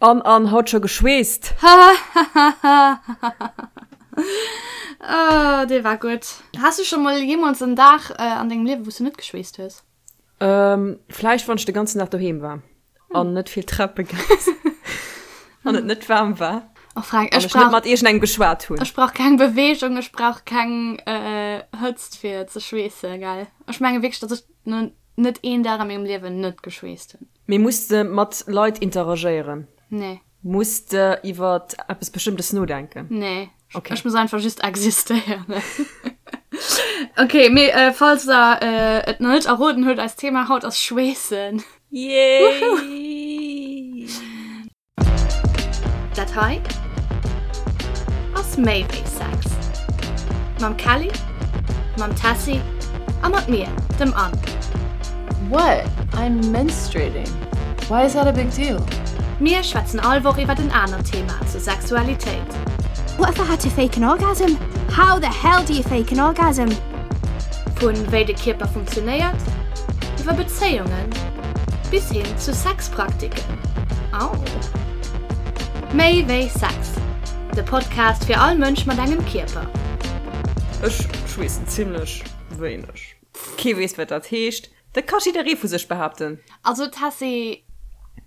An an haut scho geschweesst. Oh, dee war gutt. Has du scho mol jeemools en Dag an dengem Liewe wou s du net geschweesst hues? Vläicht wann ech de ganzen Dag doheem war an net vill Trape gaang sinn an et net waarm war. Oh Frank, ech ech net mat iergendengem geschwat hunn. Ech brauch keng Beweegung, ech brauch keng Hëtzt fir ze schweessen, gell. Ech menge wierklech, datt ech net een Dag a mengem Liewen net geschweesst hunn. Mee muss de mat Leit interagéieren? Nee. Muss de iwwer eppes Bestëmmtes nodenken? Nee. Okay. Ech muss einfach just existéieren. Okay, mee äh, falls der äh, et nach net erroden huet, eist Thema haut ass Schweessen. Yay! Dat hei ass méi wéi Sex. Mam Kelly, mam Tessy a mat mir, dem Anne. What? I'm menstruating. Why is that a big deal? Mir schwätzen all Woch iwwert en anert Thema zur Sexualitéit. What if I had to fake an orgasm? How the hell do you fake an orgasm? Vu wéi de Kierper funktionéiert, iwwer Bezéiungen bis hin zu Sexpraktiken. Au! Méi wéi Sex, de Podcast fir all Mënsch mat engem Kierper. Ech schweessen zimlech wéineg. Kee weess wat dat heescht. Dat ka jidderee vu sech behaapten. Also Tessy,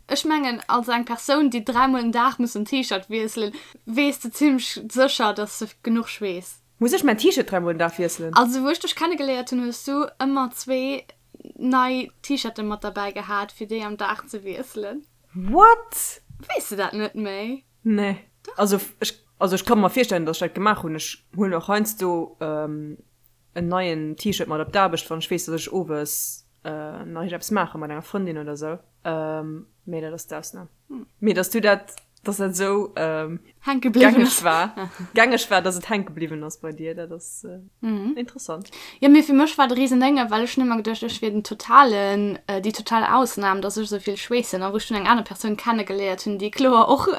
ech mengen als eng Persoun déi dräimol den Dag muss en T-Shirt wiesselen, weess de zimlech sécher dass de genuch schweess. Muss ech mäin T-Shirt dräimol den Dag wiesselen? Also wou ech dech kennegeléiert hunn, hues du ëmmer zwee nei T-Shirten mat derbäi gehat fir déi am Dag ze wiesselen. What? Weess de dat net méi? Nee. Also ech, also ech ka mer virstellen, dass ech dat gemaach hunn. Ech huelen och heiansdo en neien T-Shirt mat op d'Aarbecht, wann ech weess, dass ech owes nach iergendeppes maache mat enger Frëndin oder sou. Mee dat ass d'Ausnam. Mee dass du dat, dass dat esou Hänke bliwwen gängeg war, gängeg war, dass et hänke bliwwen ass bei dir, dat ass interessant. Jo, mee fir mech war et e Risendénge, well ech hunn ëmmer geduecht, ech wier den totalen, déi total Ausnam, dass ech esou vill schweessen. A wou ech dunn eng aner Persoun kennegeléiert hunn, déi kloer och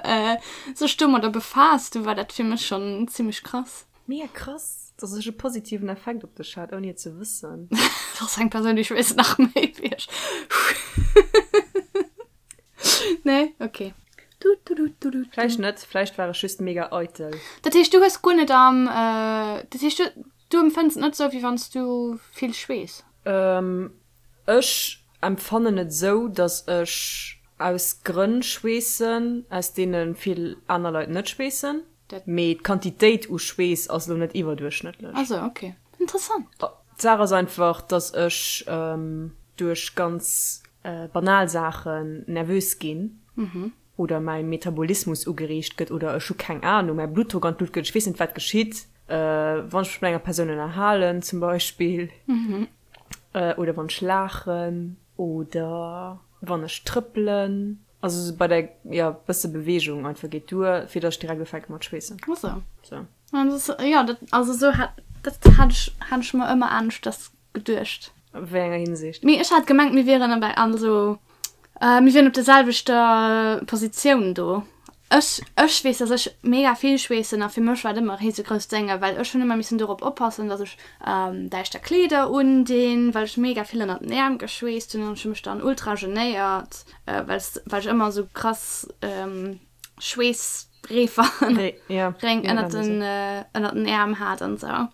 sech domadder befaasst, du war dat fir mech schonn zimmlech krass. Mega krass, dass ech e positiven Effekt op dech hat, ouni et ze wëssen. Dat ass eng Persoun, déi schweesst nach méi wéi ech. Nee? Ok. Du, du, du, du, du, Vläicht net, vläicht war ech just mega eitel. Dat heescht, du hues guer net am, dat heescht, du, du empfënns et net esou, wéi wann s du vill schweess? Ech empfannen et esou, dass ech aus Grënn schweessen, aus deene vill aner Leit net schweessen. Mee d'Quantitéit u Schweess ass elo net iwwerduerchschnëttlech. Ah sou, ok. Interessant. D'Saach ass einfach, dass ech duerch ganz banal Saachen nervös ginn oder mäi Metabolismus ugereegt gëtt oder ech hu keng Anung, mäi Bluttdrock an d'Lut gëtt, ech weess net wat geschitt, wann ech mech mat enger Persoun ënnerhalen zum Beispill oder wann ech laachen oder wann ech trëppelen. Also sou bei der, jo, bësse Bewegung einfach geet duer, fir dass ech direkt ufänke mat schweessen. Ach sou. Sou. Ja, das, ja, dat, also sou hat, dat hat ech, hat ech mer ëmmer aneschters geduecht. A wéi enger Hinsicht? Mee ech hat gemengt, mir wieren bei, also, mir wieren op der selwechter Positioun do. Ech, ech weess, dass ech mega vill schweessen a fir mech war et ëmmer e risegrousst Dénge, well ech hunn ëmmer missen dorop oppassen, dass ech däischter Kleeder undinn, well ech mega vill ënnert den Äerm geschweesst hunn an ech hu mech dann ultra genéiert, well well ech ëmmer esou krass Schweessreefer Réng ënnert den ënnert den Äerm hat an esou.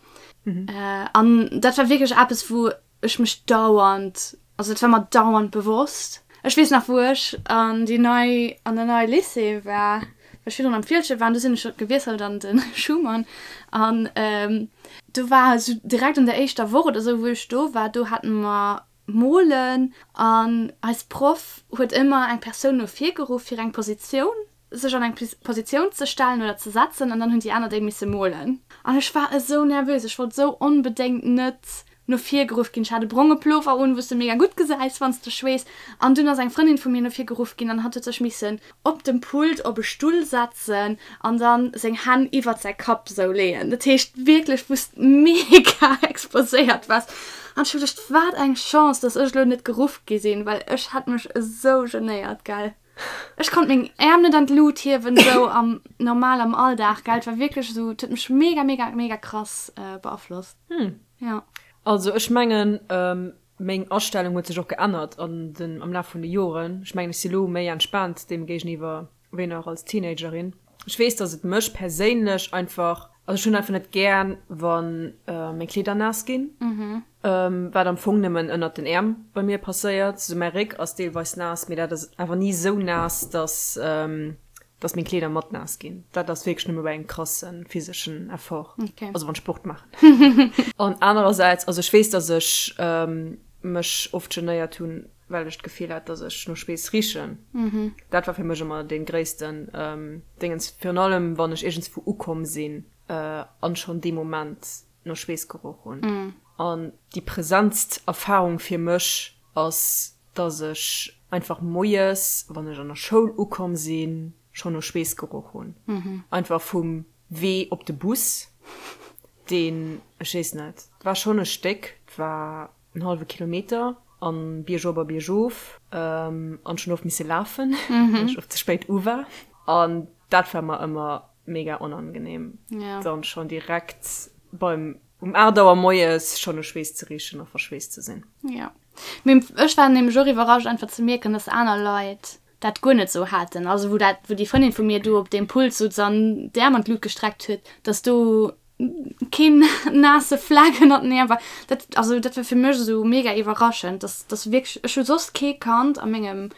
An dat war wierklech eppes, wou ech mech dauernd, also et war mer dauernd bewosst. Ech weess nach wou ech an déi nei, an der neie Lycée war, well ech virdrun am Fieldgen war an du sinn ech gewiesselt an de Schuman an do war esou direkt an der éischter Woch oder esou wou ech do war, do hate mer molen an eis Proff huet ëmmer eng Persoun no vir geruff fir eng Positioun sech an eng Positioun ze stellen oder ze setzen an dann hunn déi aner déi misse molen. An ech war esou nervös, ech wollt esou onbedéngt net no vir geruff ginn. Ech hat e bronge Plover un, wou s de mega gutt gesäis, wann s de schweess. An dunn ass eng Frëndin vu mir no vir geruff ginn an hatt huet sech missen op dem Pult op e Stull setzen an dann seng Hänn iwwert säi Kapp esou leeën. Dat heescht wierklech, wou s mega exposéiert waars. An ech hu geduecht, wat eng Chance, dass ech elo net geruff gi sinn, well ech hätt mech esou genéiert, gell. Ech konnt meng Äerm net an d'Lut hiewen, sou am normal am Alldag, gell. Et war wierklech esou, et huet mech mega, mega, mega krass beaflosst. Hm. Ja. Also ech mengen, meng Astellung huet sech och geännert an den, am Laf vun de Joren. Ech mengen, ech si lo méi entspaant deem géigeniwwer. Wéi nach als Teenagerin. Ech weess, dass et mech perséinlech einfach, also ech hunn einfach net gär, wa meng Kleeder naass ginn, wat am Fong nëmmen ënnert den Äerm bei mir passéiert. Sou mäi Réck ass deelweis naass, mee dat ass awer ni esou naass, dass dass meng Kleeder mat naass ginn. Dat ass wierklech nëmme bei engem krasse physeschen Effort, also wann ech Sport maachen. An anerersäits, also ech weess, dass ech mech oft genéiert hunn, well ech d'Gefill hat, dass ech no Schweess richen. Dat war fir mech ëmmer dee gréissten Déngens, virun allem wann ech iergendswou ukomm sinn an schonn dee Moment no Schweess geroch hunn. An déi presentst Erfarung fir mech ass, dass ech einfach moies, wann ech an der Schoul ukomm sinn, schonn no Schweess geroch hunn. Einfach vum Wee op de Bus, deen, ech weess net, war schonn e Stéck, 't war en hallwe Kilometer an biergop a biergof an ech hunn oft misse lafen, well ech oft ze spéit u war an dat war mer ëmmer mega onangenehm, dann schonn direkt beim um 8 Auer moies schonn u Schweess ze richen a verschweesst ze sinn. Jo, mee ech war nämlech och iwwerrascht einfach ze mierken, dass aner Leit dat guer net sou haten, also wou dat, wou déi Frëndin vu mir do op deem Pult sutz an d'Äerm an d'Lut gestreckt huet, dass do keen naasse Fleck ënnert den Äerm war. Dat, also dat war fir mech esou mega iwwerraschend, dass, dass wierklech, ech hu soss kee kannt a mengem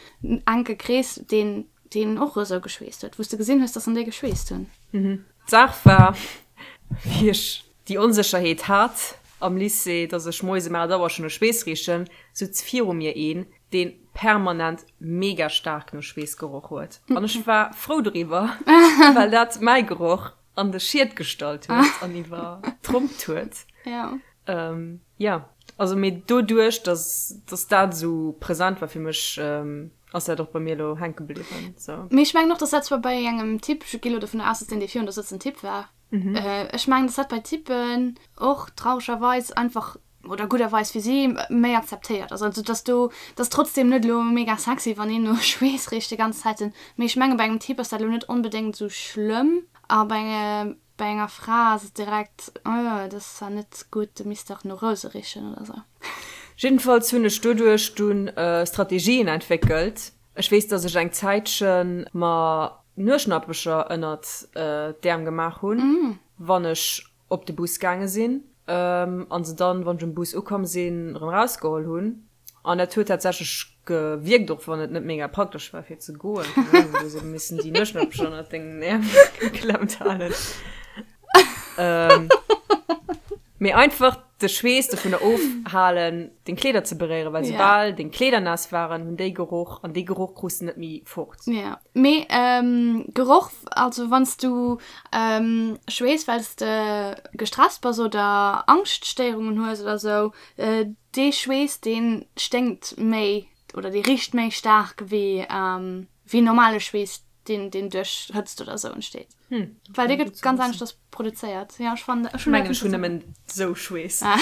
enke Krees, deen, deen och esou geschweesst huet, wou s de gesinn hues, dass en déi geschweesst hunn. D'Saach war, wéi ech déi Onsécherheet hat am Lycée, dass ech moies um 8 Auer schonn no Schweess richen, sutz viru mir een, deen permanent mega staark no Schweess geroch huet. An ech war frou doriwwer, well dat mäi Geroch an de Schied gestallt huet an iwwertrompt huet. Ja. Ähm, ja. Also mee doduerch, dass, dass dat esou present war fir mech, ähm, ass dat och bei mir elo hänke bliwwen. So. Mee ech mengen och, dass dat zwar bei engem Typ, ech gi lo dovun aus, dass deen, dee virun der sëtzt, en Typ war. Ech mengen, dass dat bei Typen och trauregerweis einfach oder gudderweis fir si, méi akzeptéiert ass. Also dass do, dat ass trotzdem net elo mega sexy, wann een no Schweess richt déi ganz Zäiten, mee ech menge bei engem Typ ass dat elo net onbedéngt esou schlëmm a bei bei enger Fra ass et direkt, oh dat ass zwar net gutt, du misst dach no Rouse richen oder sou. Jiddefalls hunn ech doduerch dunn Strategien entwéckelt. Ech weess, dass ech eng Zäitche mer Nueschnappecher ënnert d'Äerm gemaach hunn, wann ech op de Bus gaange sinn an se dann, wann ech um Bus ukomm sinn, erëm erausgeholl hunn. An dat huet tatsächlech gewierkt, och wann et net mega praktesch war fir ze goen. Keng Ahnung, du hues ebe missen déi Nueschnappech ënnert dengen Äerm geklemmt halen. Mee einfach de Schweess dovunner ofhalen, deng Kleeder ze beréieren, well soubal deng Kleeder naass waren, hunn déi geroch an dee Geroch krus de net méi fort. Ja, mee Geroch, also wann s du schweess, well s de gestresst bass oder Angschtstéierungen hues oder sou, dee Schweess, dee sténkt méi oder dee richt méi staark wéi normale Schweess, deen deen duerch Hëtzt oder sou entsteet. Hm, Well dee gëtt ganz aneschters produzéiert. Ja, ech fannen, ech mengen, ech hunn nëmmen sou Schweess. Ah.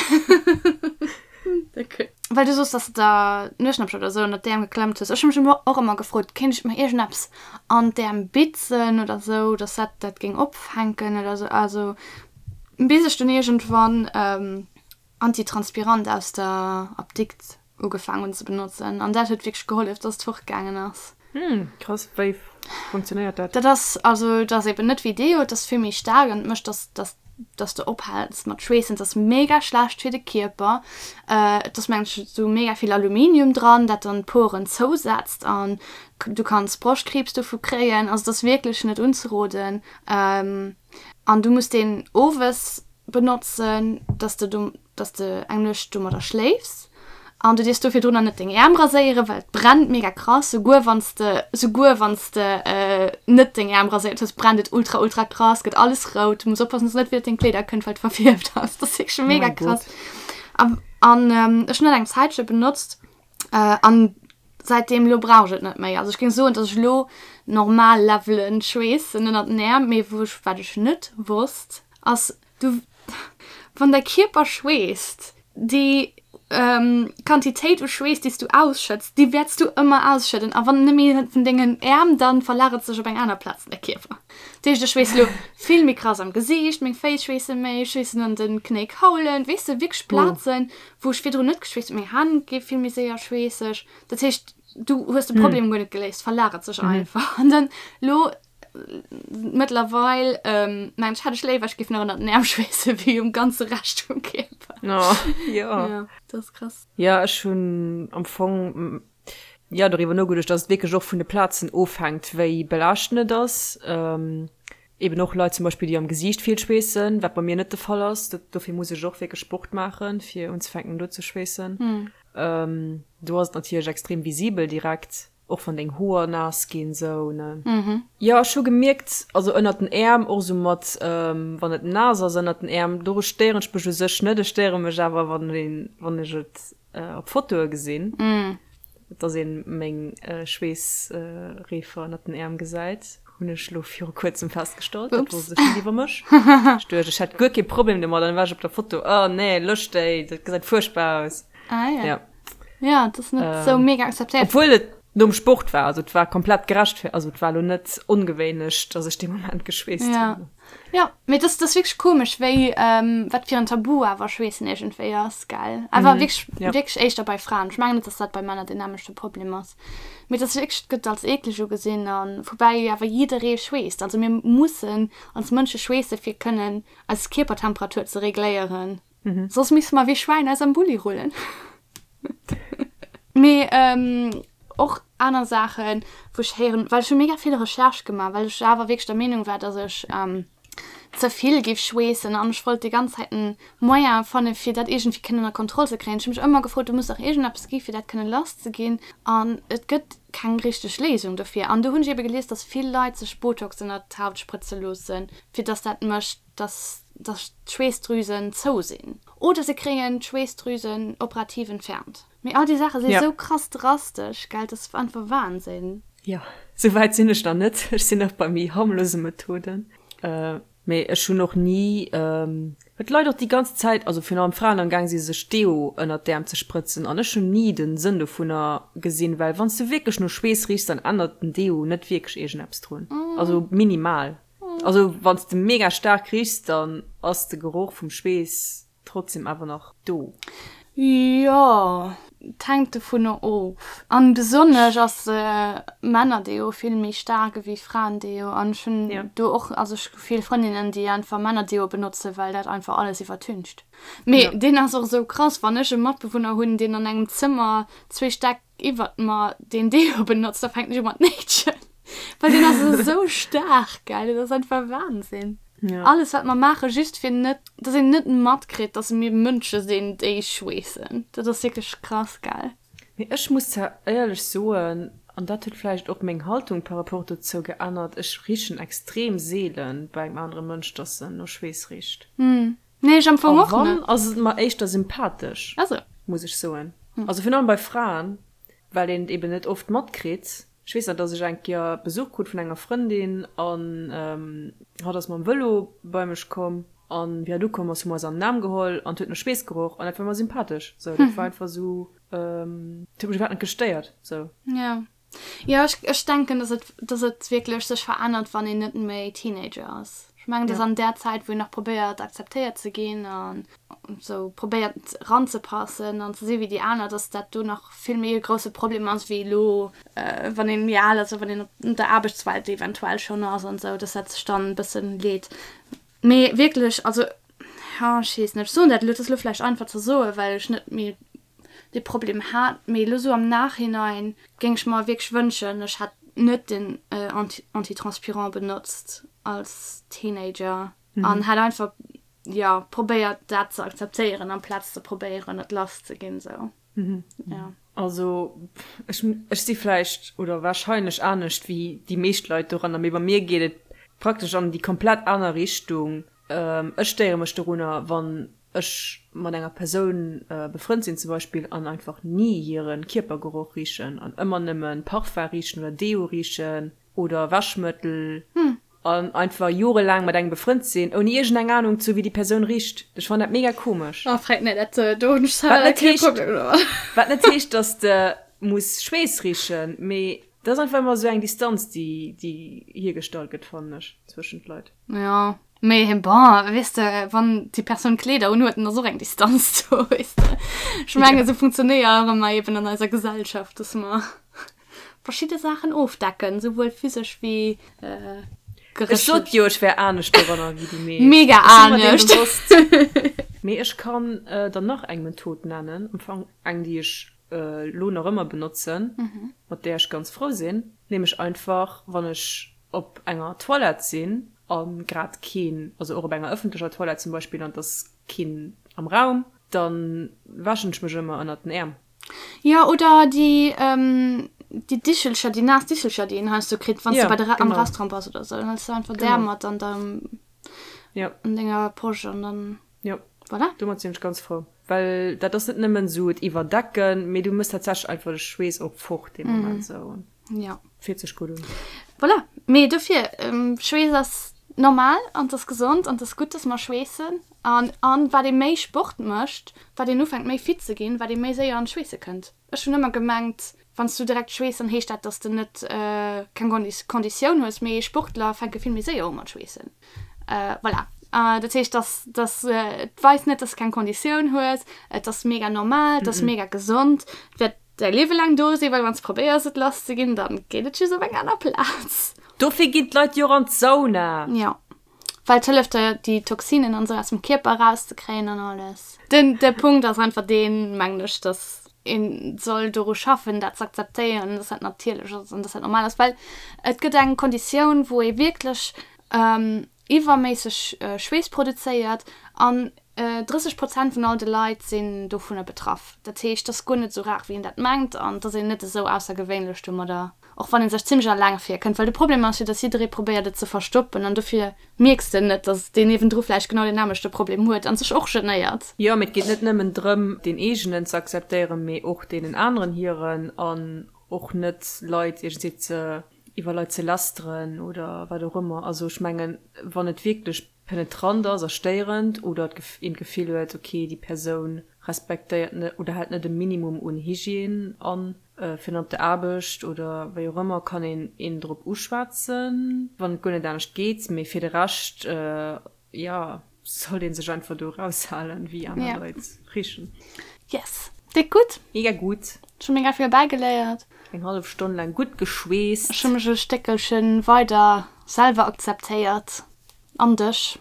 Okay. Well du soos, dass de der Nueschnappchen oder sou ënnert d'Äerm geklemmt hues. Ech hu mech ëmmer och ëmmer gefrot, kéint ech mer iergendeppes an d'Äerm bitzen oder sou, dass dat dat géing opfänken oder sou. Also bis ech dunn iergendwann Antitranspirant aus der Apdikt ugefaang hunn ze benotzen an dat huet wierklech gehollef, dass et fortgaangen ass. Hm, krass. Wéi funktionéiert dat? Dat ass, also et ass eben net wéi Deo, et ass vill méi staark an et mécht, dass, dass, dass de ophäls mat schweessen. Et ass mega schlecht fir de Kierper. Et ass mengen ech esou mega vill Aluminium dran, dat dann d'Poren zousetzt an du kanns Broschtkriibs dovu kréien. Also et ass wierklech net unzeroden an du muss deen owes benotzen, dass de do, dass de eng Nuecht domadder schléifs an du dierfs do virdrunner net deng Äerm raséieren, well et brennt mega krass, souguer wann s de, souguer wann s de net deng Äerm raséiert hues, brennt et ultra ultra krass, gëtt alles rout, du muss oppassen, dass et net widder deng Kleeder kënnt, well et verfierft ass, dat ass wierklech mega krass. An an ech hunn dat eng Zäitche benotzt an säitdeem elo brauch ech et net méi. Also ech géing soen, dass ech elo normal Levelen schweessen ënnert den Äerm, mee wou ech, wat ech net wosst, Ass du, wann däi Kierper schweesst, déi. Quantitéit u Schweess, déi s du ausschëtts, déi wäerts du ëmmer ausschëdden. A wann net méi vun dengen Äerm, dann verlagert sech op eng aner Plaz an de Kierper. Dat heescht, ech schweess elo vill méi krass am Gesiicht, meng Féiss schweesse méi, ech schweessen an de Knéikaulen, weess de, wierklech Plazen, wou ech virdrun net geschweesst hunn. Meng Hänn gi vill méi séier schweesseg. Dat heescht, du hues de Problem guer net geléist, verlagert sech einfach. An dann elo Mëttlerweil mengen ech, hätt ech léiwer, ech géif nach ënnert den Äerm schweessen, wéi um ganze Rescht vum Kierper. Oh, jo. Ja, dat ass krass. Jo, ech hunn am Fong, jo, doriwwer nogeduecht, dass et wierklech och vun de Plazen ofhänkt, wéi belaaschtend et ass. Eben och Leit zum Beispill, déi am Gesiicht vill schweessen, wat bei mir net de Fall ass. Dofir muss ech och wierklech Sport maachen, fir unzefänken do ze schweessen. Do ass et natierlech extrem visibel direkt. Och wann deng Hoer naass ginn sou ne. Jo ech hu gemierkt, also ënnert den Äerm och sou mat wann et naass ass ënnert den Äerm, doru stéieren ech mech u sech net, ech stéiere mech awer wann een wann ech et op Fotoe gesinn, dass een meng Schweessreefer ënnert den Äerm gesäit, hunn ech lo viru kuerzem festgestallt, dat wosst ech net iwwer mech. Ech duecht ech hätt guer kee Problem domat an dann war ech op der Foto, oh nee lösch déi, dat gesäit fuerchtbar aus. Ah ja. Ja. Ja, dat ass net sou mega akzeptéiert. Obwuel et nom Sport war, also et war komplett gerechtfer-, also et war elo net ongewéinlech, dass ech dee Moment geschweesst Ja. hunn. Ja, mee dat ass, dat ass wierklech komesch, wéi, wat fir en Tabu awer Schweessen iergendwéi ass, gell? Awer wierklech, Ja. wierklech éischter bei Fraen. Ech mengen net, dass dat bei Männer deen nämmlechte Problem ass. Mee et ass wierklech, et gëtt als eekleg ugesinn a woubäi awer jidderee schweesst. Also mir mussen als Mënsche schweesse fir kënnen eis Kierpertemperatur ze regléieren. Soss misste mer wéi Schwäin eis am Bulli rullen. Mee och aner Saachen, wou ech héieren, well ech hu mega vill Recherche gemaach, well ech awer wierklech der Meenung war, dass ech ze vill géif schweessen an ech wollt déi ganz Zäit en Moyen fanne fir dat iergendwéi kënnen ënner Kontroll ze kréien. Ech hu mech ëmmer gefrot, do muss dach iergendeppes gi fir dat kënnen lass ze ginn an et gëtt keng richteg Léisung dofir. An do hunn ech ebe gelies, dass vill Leit sech Botox ënnert d'Haut sprëtze loossen, fir dass dat mécht, dass dass d'Schweessdrüsen zou sinn oder se kréien d'Schweessdrüsen operativ entfernt. Mee all déi Saache si sou krass drastesch, gell, dat ass einfach Wahnsinn. Jo, sou wäit sinn ech nach net, ech sinn nach bei méi harmlose Methoden. Mee ech hunn och ni, well d'Leit och déi ganz Zäit, also virun allem Fraen, am Gaang si sech Deo ënnert d'Äerm ze sprëtzen an ech hunn ni den Sënn dovunner gesinn, well wann s de wierklech no Schweess richs, dann ännert den Deo net wierklech iergendeppes drun, also minimal. Also wanns de mega staark richs, dann ass de Geroch vum Schweess trotzdem awer nach do. Jo, et hänkt dovunner of. An besonnesch ass Männerdeo vill méi staark ewéi Fraendeo. An ech hunn do och, also ech hu vill Frëndinnen, déi einfach Männerdeo benotzen, well dat einfach alles iwwertüncht. Mee deen ass och esou krass, wann ech e Matbewunner hunn, deen an engem Zëmmer zwee Stäck iwwert mer deen Deo benotzt, da fänken ech u mat néitschen. Well deen ass esou staark, gell, dat ass einfach Wahnsinn. Ja. Alles wat mer maachen, just fir net, dass een net matkritt, dass mir Mënsche sinn, déi schweessen. Dat ass wierklech krass, gell. Mee ech muss zwar éierlech soen, an dat huet vläicht och meng Haltung par rapport dozou geännert, ech richen extrem seelen bei engem anere Mënsch, dass en no Schweess richt. Nee, ech am Fong A och wann, net. ass et mer éischter sympathesch, Ah sou. muss ech soen. Also virun allem bei Fraen, well een et eben net oft matkritt. Ech weess nach, dass ech eng Kéier Besuch krut vun enger Frëndin an hatt ass mam Vëlo bei mech komm an wéi hatt ukomm ass, hu mer eis an den Aarm geholl an et huet no Schweess geroch an dat war mer sympathesch. Sou, dat war einfach sou, et huet mech iwwerhaapt net gestéiert, sou. Jo. Jo, ech, ech denken, dass et, dass et wierklech sech verännert, wann een net méi Teenager ass. Ech mengen, dass Ja. an där Zäit, wou een nach probéiert, akzeptéiert ze ginn an esou probéiert ranzepassen an ze si wéi déi aner, dass dat do nach vill méi e grousse Problem ass wéi elo, wann een méi al ass a wann een op der Aarbechtswelt eventuell schonn ass an esou, dass dat sech dann e bëssen leet. Mee wierklech, also, jo, ech weess net, ech soen dat elo, et ass elo vläicht einfach ze soen, well ech net méi dee Problem hat, mee elo sou am Nachhinein géing ech mer wierklech wënschen, ech hätt net den Antitranspirant benotzt als Teenager an hätt einfach, jo, probéiert dat ze akzeptéieren amplaz ze probéieren et lass ze ginn sou, jo. Also ech ech si vläicht oder warscheinlech anescht wéi déi meescht Leit doranner, mee bei mir geet et praktesch an déi komplett aner Richtung. Ech stéiere mech dorunner, wann ech mat enger Persoun befrënnt sinn zum Beispill an einfach ni hire Kierpergeroch richen an ëmmer nëmme Parfum richen oder Deo richen oder Wäschmëttel. An einfach jorelaang mat engem befrënnt sinn, ouni iergendeng Anung ze hu wéi déi Persoun richt. Ech fannen dat mega komesch. Oh, frag net, dat do hunn ech selwer kee Problem domat. Wat net heescht, dass de muss Schweess richen, mee dat ass einfach ëmmer esou eng Distanz, déi déi hiergestallt gëtt, fannen ech, zwëschent Leit. Jo, mee bon, weess de, wann déi Persoun Kleeder unhuet, dann ass och eng Distanz do, weess de. Ech mengen, esou funktionéiere mer eben an eiser Gesellschaft, dass mer verschidde Saachen ofdecken, souwuel physesch wéi geréchlech. Ech sot jo, ech wär anescht doranner wéi déi meescht. Mega anescht! Mee ech kann der nach eng Method nennen, am Fong eng, déi ech elo nach ëmmer benotzen, mat där ech ganz frou sinn, nämlech einfach, wann ech op enger Toilette sinn a grad keen, also och op enger ëffentlecher Toilette zum Beispill, an et ass keen am Raum, da wäschen ech mech ëmmer ënnert den Äerm. Jo, oder déi, déi Dichelcher, déi naass Dichelcher, déi een heiansdo kritt, wann s du bei der, am Restaurant bass oder esou. Dann hëls du einfach där mat an deinem, an denger Posch an dann, voilà. Domat sinn ech ganz frou, well dat ass net nëmmen esou et iwwerdecken, mee du mëss tatsächlech einfach de Schweess och fort dee Moment esou. Jo. Fillt sech gutt un. Voilà, mee dofir, Schweess ass normal an 't ass gesond an 't ass gutt, dass mer schweessen. An an wat ee méi Sport mécht, wat een ufänkt méi fit ze ginn, wat ee méi séier an d'Schweesse kënnt. Ech hunn ëmmer gemengt, wann s du direkt schweess, dann heescht dat, dass de net keng Konditioun hues, mee Sportler fänke vill méi séier u mat schweessen. Voilà. Dat heescht, dass dass et weist net, dass de keng Konditioun hues, et ass mega normal, et ass mega gesond, et wäert däi Liewe laang do sinn, well wann s probéiers et lass ze ginn, dann geet et just op eng aner Plaz. Dofir ginn d'Leit jo och an d'Sauna. Jo. Well et hëlleft der déi Toxinen an esou aus dem Kierper erauszekréien an alles. Den de Punkt ass einfach deen, mengen ech, dass een soll doru schaffen dat ze akzeptéieren, dass dat natierlech ass an dass dat normal ass, well et gëtt eng Konditioun wou ee wierklech iwwerméisseg Schweess produzéiert an 30 Prozent vun all de Leit sinn dovunner betraff. Dat heescht, et ass guer net esou rar wéi een dat mengt an et ass een net esou aussergewéinlech domadder. Och wann ee sech zimmlech alleng virkënnt, well de Problem ass jo, dass jidderee probéiert et ze verstoppen an dofir mierks de net, dass deen niewendru vläicht genau deen nämmlechte Problem huet an sech och genéiert. Jo, mee et geet net nëmmen drëm, deen eegenen ze akzeptéieren, mee och deenen aneren hiren an och net Leit iergendwéi ze iwwer Leit ze lästeren oder wat och ëmmer. Also ech mengen, wann et wierklech penetrant ass a stéierend oder een d'Gefill huet, ok, déi Persoun respektéiert net oder hält net e Minimum un Hygiène an, fir dann op der Aarbecht oder wéi och ëmmer, kann een een drop uschwätzen, wann et guer net anescht geet. Mee fir de Rescht, jo, sollt ee sech einfach do eraushalen, wéi aner Leit richen. Yes, déck gutt! Mega gutt! Ech hu mega vill bäigeléiert. Eng hallef Stonn laang gutt geschweesst. Ech hu mech e Stéckelche weider selwer akzeptéiert. An dech.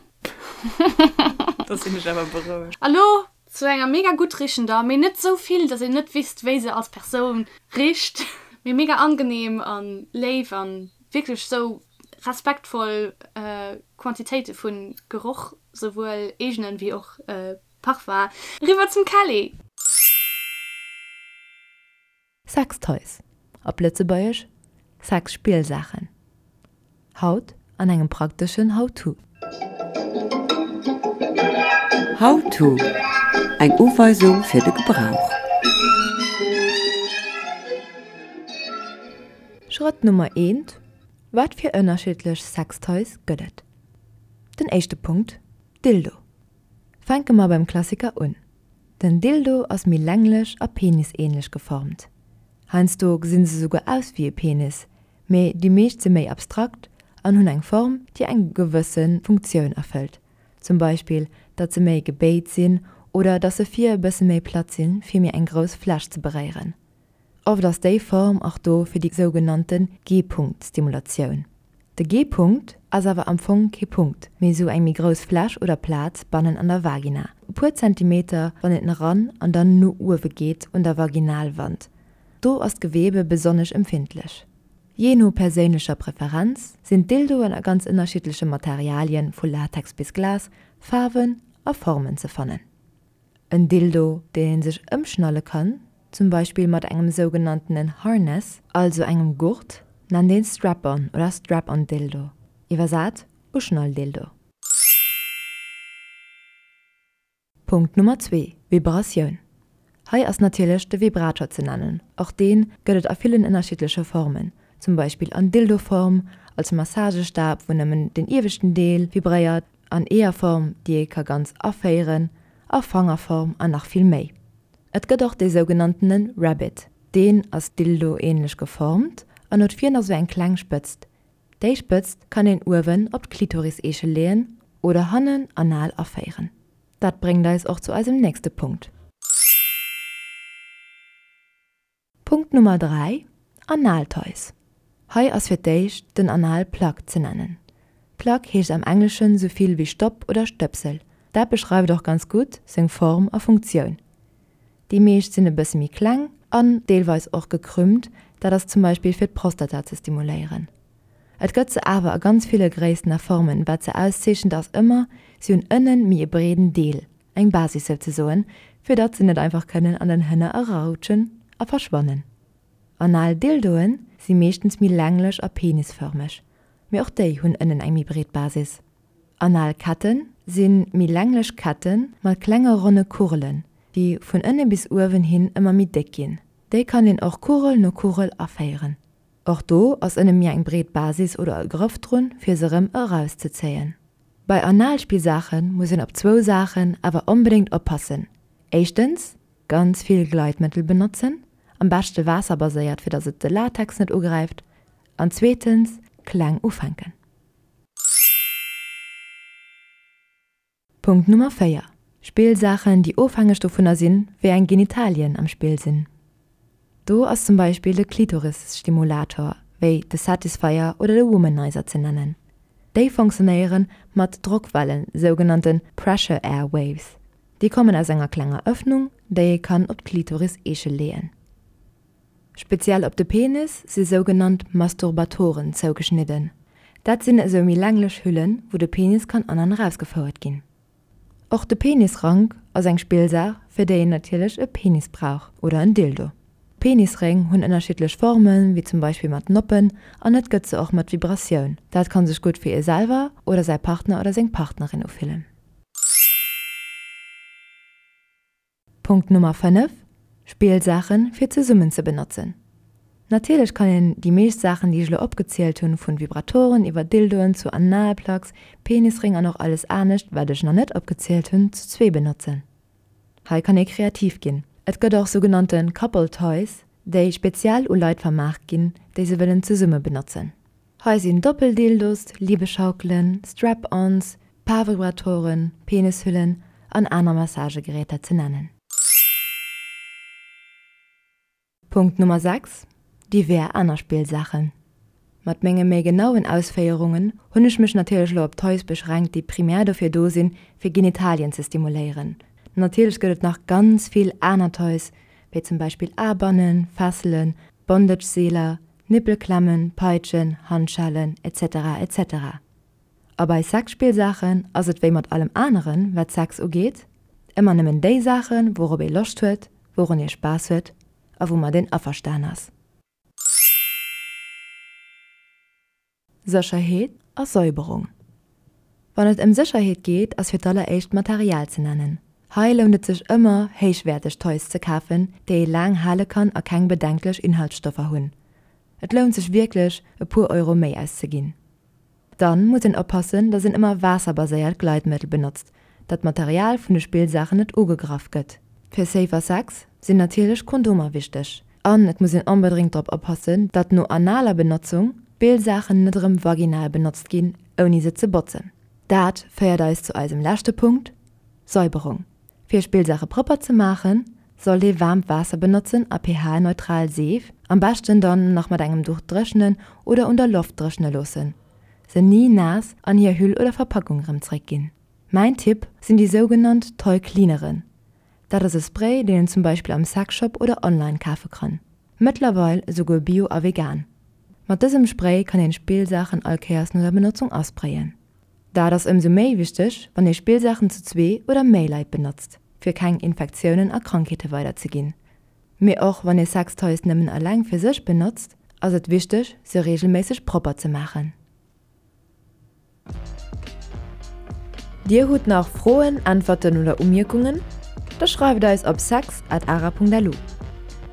Da sinn ech awer berouegt. A lo zu enger mega gutt richender, mee net sou vill, dass een net wisst, wéi se als Persoun richt, mee mega angenehm an léif an wierklech sou respektvoll Quantitéite vun Geroch, souwuel eegenen wéi och Parfum. Eriwwer zum Kelly! Sextoys, op Lëtzebuergesch Sexspillsaachen. Haut an engem prakteschen How-to. How-to, Eng Uweisung fir de Gebrauch. Schrëtt Nummer eent, Wat fir ënnerschiddlech Sextoys gëtt et? Den éischte Punkt, Dildo. Fänke mer beim Klassiker un. Den Dildo ass méi länglech a penisähnlech geformt. Heiansdo gesinn se souguer aus wéi e Penis, mee déi meescht si méi abstrakt an hunn eng Form, déi eng gewësse Funktioun erfëllt, zum Beispill datt se méi gebéit sinn oder datt se vir e bësse méi platt sinn, fir méi eng grouss Fläch ze beréieren. Oft ass déi Form och do fir déi sougenannte G-Punkt-Stimulatioun. De G-Punkt ass awer am Fong kee Punkt, mee sou eng méi grouss Fläch oder Plaz bannen an der Vagina, e puer Zentimeter wann een eran an dann no uewe geet un der Vaginalwand. Do ass d'Gewebe besonnesch empfindlech. Jee no perséinlecher Preferenz sinn d'Dildoen a ganz ënnerschiddleche Materialien, vu Latex bis Glas, Faarwen a Formen ze fannen. En Dildo, deen een sech ëmschnalle kann, zum Beispill mat engem sougenanntenen Harness, also engem Gurt, nennt een Strap-on oder Strap-on-Dildo, iwwersat Uschnall-Dildo. Punkt Nummer zwee, Vibratioun. Hei ass natierlech de Vibrator ze nennen. Och deen gëtt et a villen ënnerschiddleche Formen. zum Beispill an Dildo-Form, als Massagestab, wou nëmmen den ieweschten Deel vibréiert, an Eeërform, déi ee ka ganz aféieren, a Fangerform an nach vill méi. Et gëtt och dee sougenanntene Rabbit, deen ass Dildo-ähnlech geformt an huet vir nach sou eng kleng Spëtzt. Déi Spëtzt kann een uewen op d'Klitoris-Eechel leeën oder hannen anal aféieren. Dat bréngt eis och zu eisem nächste Punkt. Punkt Nummer 3, Analtoys. Hei ass fir d'éischt den Analplug ze nennen. Plug heescht am Engleschen sou vill wéi Stopp oder Stöpsel. Dat beschreift och ganz gutt seng Form a Funktioun. Déi meescht sinn e bësse méi kleng an deelweis och gekrümmt, dat ass zum Beispill fir d'Prostata ze stimuléieren. Et gëtt se awer a ganz ville Gréissten a Formen. Wat se auszeechent ass ëmmer, si hunn ënnen méi e breeden Deel, eng Basis souzesoen, fir datt se net einfach kënnen an den Hënner erarutschen a verschwannen. Anal Dildoen si meeschtens méi länglech a penisfërmeg, mee och déi hunn ënnen eng méi breet Basis. Anal Ketten si méi länglech Kette mat klenge ronne Kugelen, déi vun ënne bis uewen hin ëmmer méi déck ginn. Déi kann een och Kugel no Kugel aféieren. Och do ass ënne méi eng breet Basis oder e Grëff drun, fir se rëm erauszezéien. Bei Analspillsaache muss een op zwou Saachen awer onbedéngt oppassen, éischtens, ganz vill Gleitmëttel benotzen, am beschte waasserbaséiert fir dass et de Latex net ugräift, an zweetens, kleng ufänken. Punkt Nummer 4, Spillsaachen, déi ofhängeg dovunner sinn, wéi eng Genitalien am Spill sinn. Do ass zum Beispill de Klitoris-Stimulator, wéi de Satisfyer oder de Womanizer ze nennen. Déi fonctionnéiere mat Drockwellen, sougenannte Pressure Air Waves. Déi kommen aus enger klenger Ëffnung, déi ee kann op d'Klitoris-Eechel leeën. Speziell op de Penis si sougenannt Masturbatoren zougeschnidden. Dat sinn esou méi länglech Hüllen, wou de Penis kann an an erausgefouert ginn. Och de Penisrank ass eng Spillsaach, fir déi een natierlech e Penis brauch oder en Dildo. Penisréng hunn ënnerschiddlech Formen, wéi zum Beispill mat Noppen an et gëtt se och mat Vibratioun. Dat kann sech gutt fir ee selwer oder säi Partner oder seng Partnerin ufillen. Punkt Nummer 5, Spillsaachen fir zesummen ze benotzen. Natierlech kann een déi meescht Saachen déi ech elo opgezielt hunn, vun Vibratoren iwwer Dildoen zu Analplugs, Penisring an och alles anescht wat ech nach net opgezielt hunn, zu zwee benotzen. Hei kann ee kreativ ginn. Et gëtt och sougenannte Couple Toys, déi speziell u Leit vermaart ginn, déi se wëllen zesumme benotzen. Hei sinn Doppeldildos, Liebeschaukelen, Strap-ons, Paarvibratoren, Penishüllen an aner Massagegeräter ze nennen. Punkt Nummer 6, Divers aner Spillsaachen. Mat menge méi genauen Ausféierungen hunn ech mech natierlech elo op Toys beschränkt, déi primär dofir do sinn, fir Genitalien ze stimuléieren. Natierlech gëtt et nach ganz vill aner Toys, wéi zum Beispill Aarbannen, Fesselen, Bondage-Seeler, Nippelklemmen, Peitschen, Handschellen, etc. Etc. A bei Sexspillsaachen ass et wéi mat allem aneren, wat Sex ugeet, ëmmer nëmmen déi Saachen, wourop ee Loscht huet, wourun ee Spaass huet a woumat een averstan ass. Sécherheet a Säuberung Wann et ëm Sécherheet geet, ass fir d'alleréischt d'Material ze nennen. Hei lount et sech ëmmer, héichwäerteg Toys ze kafen, déi ee laang hale kann a keng bedenklech Inhaltsstoffer hunn. Et lount sech wierklech, e puer Euro méi auszeginn. Dann muss een oppassen, dass een ëmmer waasserbaséiert Gleitmëttel benotzt, dat d'Material vun de Spillsaachen net ugegraff gëtt. Fir safer Sex sinn natierlech Kondomer wichteg. An et muss een onbedréngt drop oppassen, datt no analer Benotzung d'Spillsaachen net erëm vaginal benotzt ginn, ouni se ze botzen. Dat féiert eis zu eisem leschte Punkt, Säuberung. Fir Spillsaache propper ze maachen, sollt ee waarmt Waasser benotzen a pH-neutral Seef, am beschten dann nach mat engem Duch dréchnen oder un der Loft dréchne loossen. Se ni naass an hir Hüll oder Verpackung erëm zréckginn. Mäin Tipp sinn déi sougenannt Toy Cleaneren. Dat ass e Spray, deen een zum Beispill am Sexshop oder online kafe kann. Mëttlerweil esouguer bio a vegan. Mat dësem Spray kann een Spillsaachen all Kéiers no der Benotzung asprayen. Dat ass ëmsou méi wichteg, wann ee Spillsaachen zu zwee oder méi Leit benotzt, fir keng Infektiounen a Krankheete weider ze ginn. Mee och wann ee Sextoys nëmmen eleng fir sech benotzt, ass et wichteg, se reegelméisseg propper ze maachen. Dir hutt nach Froen, Äntwerten oder Umierkungen? Da schreift eis op sex at ara.lu.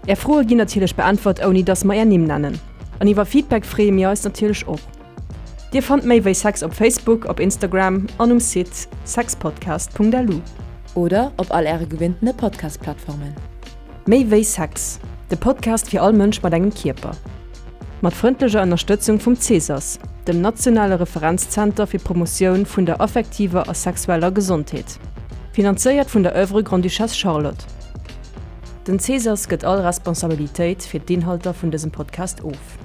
Är Froe ginn natierlech beäntwert, ouni dass mer är Nimm nennen. An iwwer Feedback freeë mir eis natierlech och. Dir fannt méi wéi Sex op Facebook, op Instagram an um Site sexpodcast.lu. Oder op all äre gewinntene Podcast-Plattformen. Méi wéi Sex, de Podcast fir all Mënsch mat engem Kierper. Mat frëndlecher Ënnerstëtzung vum Cesas, dem nationale Referenzzenter fir d'Promotioun vun der affektiver a sexueller Gesondheet. Finanzéiert vun der Oeuvre Grande-Duchesse Charlotte. Den Cesas gëtt all Responsabilitéit fir d'Inhalter vun dësem Podcast of.